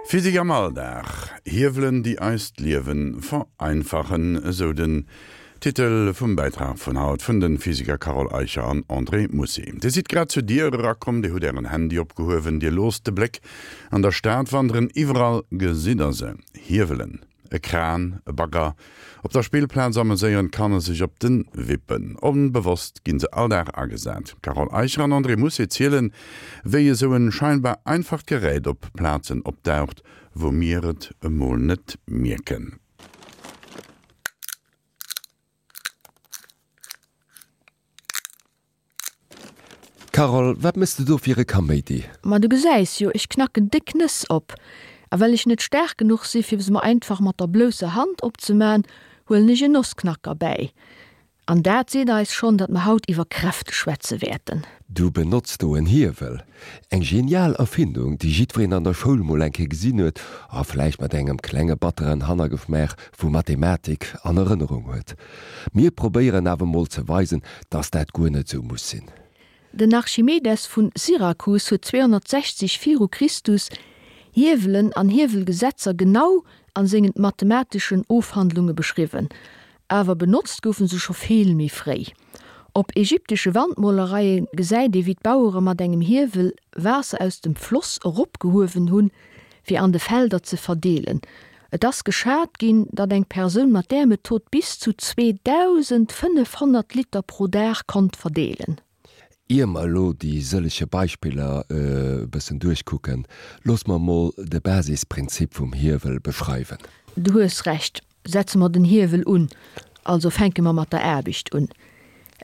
Physik am Alldag, Hiewelen déi eist Liewen vereinfachen, esou den Titel vum Bäitrag vun haut vun den Physiker Carole Eicher an André Mousset. Dir sidd grad zur Dier erakomm, dir hutt ären Handy opgehuewen, dir loosst de Bléck an der Stad wanderen, iwwerall gesitt der se, Hiewelen, e Kran, e Bagger. Op der Spillplaz ameséieren d'Kanner sech op den Wippen. Onbewosst ginn se all Dag agesat. D'Carole Eicher an André Mousset zielen, wéi esou en scheinbar einfacht Gerät op Plazen opdaucht, wou mir et emol net mierken. Carole, wat mëss de do fir e Kaméidi? Ma du gesäis jo, ech knacken déck Nëss op. A well ech net staark genuch si fir se mer einfach mat der blousser Hand opzeman, huelen ech en Nossknacker bäi. An dat seet eis schonn, datt mer haut iwwer Kräfte schwätze wäerten. Du benotz do en Hiewel. Eng genial Erfindung, déi jiddwereen an der Schoul mol eng Kéier gesinn huet a vläicht mat engem klenge batteren Hannergeschmaach vu Mathematik an Erënnerung huet. Mir probéieren awer mol ze weisen, dass dat guer net sou muss sinn. Den Archimedes vun Syrakus huet 260 viru Christus Hiewelen an Hiewelgesetzer genau an sengen mathemateschen Ofhandlunge beschriwwen. Awer benotzt goufe se scho vill méi fréi. Op ägyptesche Wandmolereie gesäit ee wéi d'Bauere mat engem Hiewel Waasser aus dem Floss eropgehuewen hunn, fir an de Felder ze verdeelen. Et ass geschat ginn, datt eng Persoun mat där Method bis zu 2.500 Liter pro Dag konnt verdeelen. Ier mer elo déi sëllege Beispiller e bëssen duerchkucken, looss mer mol de Basisprinzip vum Hiewel beschreiwen. Du hues Recht. Setze mer den Hiewel un, also fänke mer mat der Aarbecht un.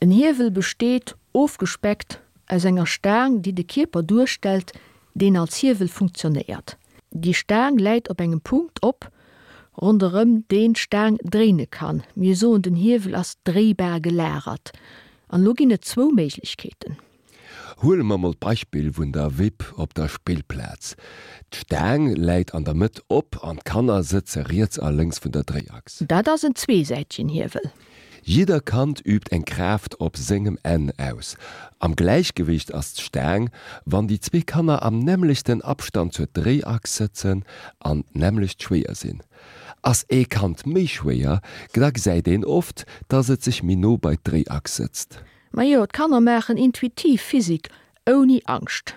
En Hiewel besteet, ofgespeckt, aus enger Staang, déi de Kierper duerstellt, deen als Hiewel funktionéiert. Déi Staang läit op engem Punkt op, ronderëm deen d'Staang dréine kann. Mir soen, den Hiewel ass dréibar gelagert. An elo ginn et zwou Méiglechkeeten. Huele mer mol d'Beispill vun der Wipp op der Spillplaz. D'Staang läit an der Mëtt op an d'Kanner sëtze riets a lénks vun der Dréiachs. Dat ass en zweesäitegen Hiewel. Jidder Kand übt eng Kraaft op sengem Enn aus. Am Gläichgewicht ass d'Staang, wann déi zwee Kanner am nämmlechten Abstand zur Dréiachs sëtzen an d'nämmlecht schwéier sinn. Ass ee Kand méi schwéier, da gesäit een oft, dass et sech méi no bei d'Dréiachs sëtzt. Majo, d'Kanner maachen intuitiv Physik ouni Angscht.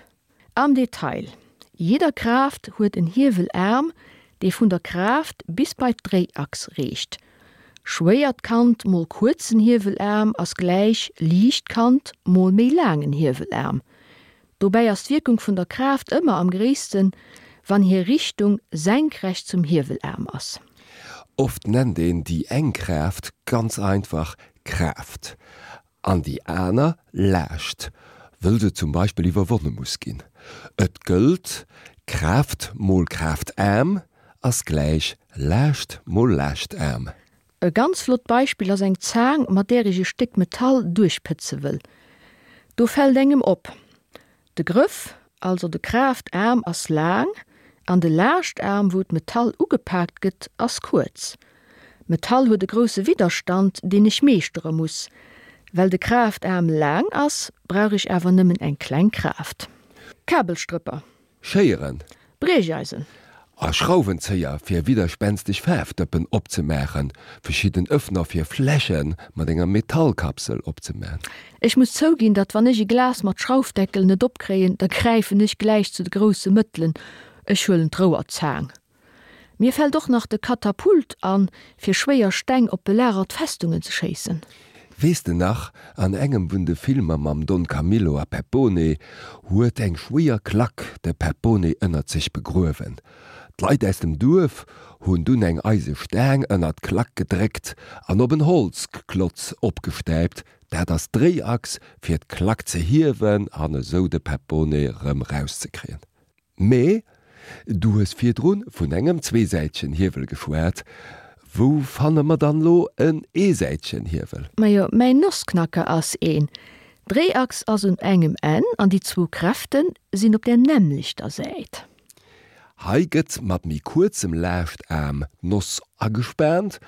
Am Detail, Jidder Kraaft huet en Hiewelaarm, dee vun der Kraaft bis bei d'Dréiachs reecht. Schwéiert Kand mol kuerzen Hiewelaarm ass gläich liicht Kand mol méi laangen Hiewelaarm. Dobäi ass d'Wierkung vun der Kraaft ëmmer am gréissten, wann hir Richtung senkrecht zum Hiewelaarm ass. Oft nennt een déi eng Kraaft ganz einfach Kraaft an déi aner Laascht, wëll se zum Beispill iwwerwonne muss ginn. Et gëllt, Kraaft mol Kraaftaarm ass gläich Laascht mol Laachtaarm. E ganz flott Beispill ass eng Zaang, mat där ech e Stéck Metall duerchpëtze wëll. Do fält engem op, de Grëff, also de Kraaftaarm ass laang an de Laachtaarm, wou d'Metall ugepaakt gëtt, ass kuerz. D'Metall huet e grousse Widderstand, deen ech meeschtere muss. Well de Kraaftaarm laang ass, brauch ech awer nëmmen eng kleng Kraaft. Kabelstrëpper. Schéieren. Briecheisen. A Schrauwenzéier fir widderspänsteg Faarfdëppen opzemaachen, verschidden Öffner fir Fläsche mat enger Metallkapsel opzemaan. Ech muss zouginn, datt wann ech e Glas mat Schraufdeckel net opkréien, da gräifen ech gläich zu de grousse Mëttelen, ech huelen d'Rouerzaang. Mir fällt och nach de Katapult an, fir schwéier Steng op belagert Festungen ze schéissen. Weess de nach, an engem vun de Filmer mam Don Camillo a Peppone huet eng schwéier Klack de Peppone ënnert sech begruewen. D'Leit aus dem Duerf hunn dunn eng eise Staang ënnert d'Klack gedréckt an op en Holzklotz opgestäipt, dat ass d'Dréiachs, fir d'Klack ze hiewen an esou de Peppone rëm rauszekréien. Mee du hues virdrun vun engem zweesäitegen Hiewel geschwat. Wou fanne mer dann lo en eesäitegen Hiewel? Majo, mäin Nossknacker ass een. D'Dréiachs ass un engem Enn an déi zwou Kräften sinn op der nämmlechter Säit. Hei gëtt mat méi kuerzem Laachtaarm d'Noss agespaant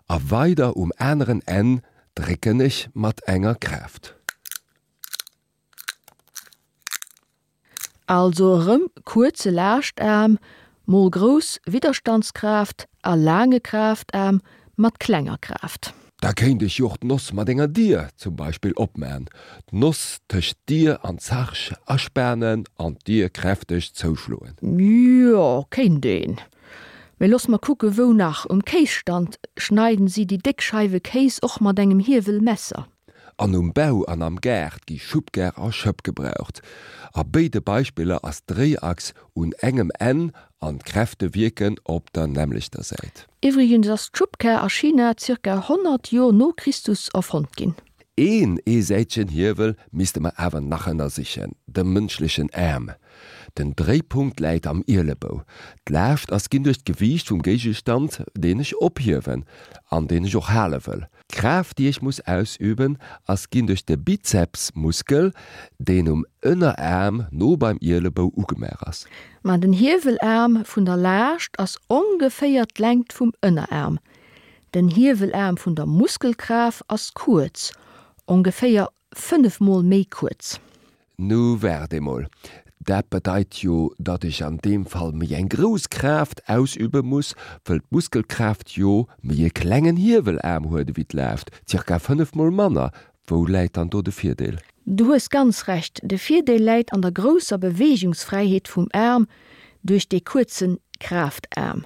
a weider um aneren Enn drécken ech mat enger Kraaft. Also erëm kuerze Laachtaarm. Mol grouss Widderstandskraaft a laange Kraaftaarm mat klenger Kraaft. Da kéint ech jo och d'Noss mat enger Dier zum Beispill opman, d'Noss tëscht d'Dier an d'Zarsch aspanen an d'Dier kräfteg zouschloen. Jo, kéint een. Mee looss mer kucke wou nach. Um Kéisstand schneiden si déi déck Scheiwe Kéis och mat engem Hiewelmesser. An um Bau an am Gaart gi Schubkar a Schëpp gebraucht. A béide Beispiller ass d'Dréiachs un engem Enn an d'Kräfte wierken op der nämmlechter Säit. Iwwregens ass d'Schubkar a China zirka 100 Jor no Christus erfonnt ginn. Een eesäitegen Hiewel misste mer awer nach ënnersichen, de mënschlechen Aarm. Den Dréipunkt läit am Ielebou. D'Laascht ass ginn duerch d'Gewiicht vum Géigestand, deen ech ophiewen an deen ech och hale wëll. D'Kraaft, déi ech muss ausüben, ass ginn duerch de Bizepsmuskel, deen um Ënneraarm no beim Ielebou ugemaach ass. Ma den Hiewelaarm vun der Laascht ass ongeféier d'Längt vum Ënneraarm. Den Hiewelaarm vun der Muskelkraaft ass kuerz, ongeféier 5 mol méi kuerz. Nu waart emol, dat bedeit jo, datt ech an deem Fall méi eng grouss Kraaft ausübe muss, wëll d'Muskelkraaft jo méi e klengen Hiewelaarm huet ewéi d'Laascht, zirka 5 mol manner. Wou läit dann do de Virdeel? Du hues ganz Recht, de Virdeel läit an der grousser Beweegungsfräiheet vum Aarm duerch dee kuerze Kraaftaarm.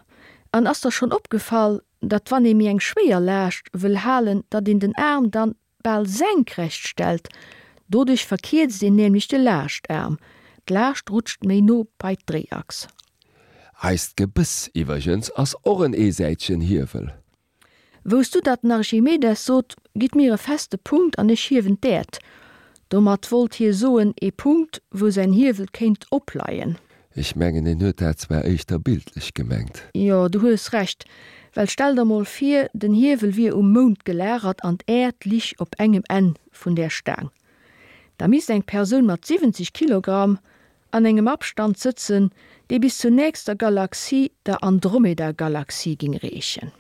An ass der schonn opgefall, datt wann ee méi eng schwéier Laascht wëll halen, datt een den Aarm dann bal senkrecht stellt, doduerch verkierzt een nämlech de Laachtaarm, d'Laascht rutscht méi no bei d'Dréiachs. Eist Gebëss iwwergens ass och en eesäitegen Hiewel. Wousst du datt den Archimedes sot, Gitt mir e feste Punkt an ech hiewen d'Äerd? Domat wollt hie soen, ee Punkt, wou säin Hiewel kéint opleien. Ech mengen en huet dat zwar éischter bildlech gemengt. Jo, du hues Recht, well stell der mol vir, den Hiewel wier um Mound gelagert an d'Äerd lich op engem Enn vun där Staang. Da misst eng Persoun mat 70 Kilogramm an engem Abstand sëtzen, dee bis zur nächster Galaxie, der Andromeda-Galaxie, ging reechen.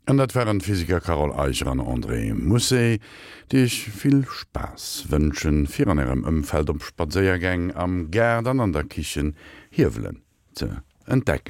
An dat waren d'Physiker Carole Eicher an André Mousset, déi iech vill Spaass wënschen, fir an ärem Ëmfeld op Spadséiergäng, am Gaart an an der Kichen Hiewelen ze entdecken.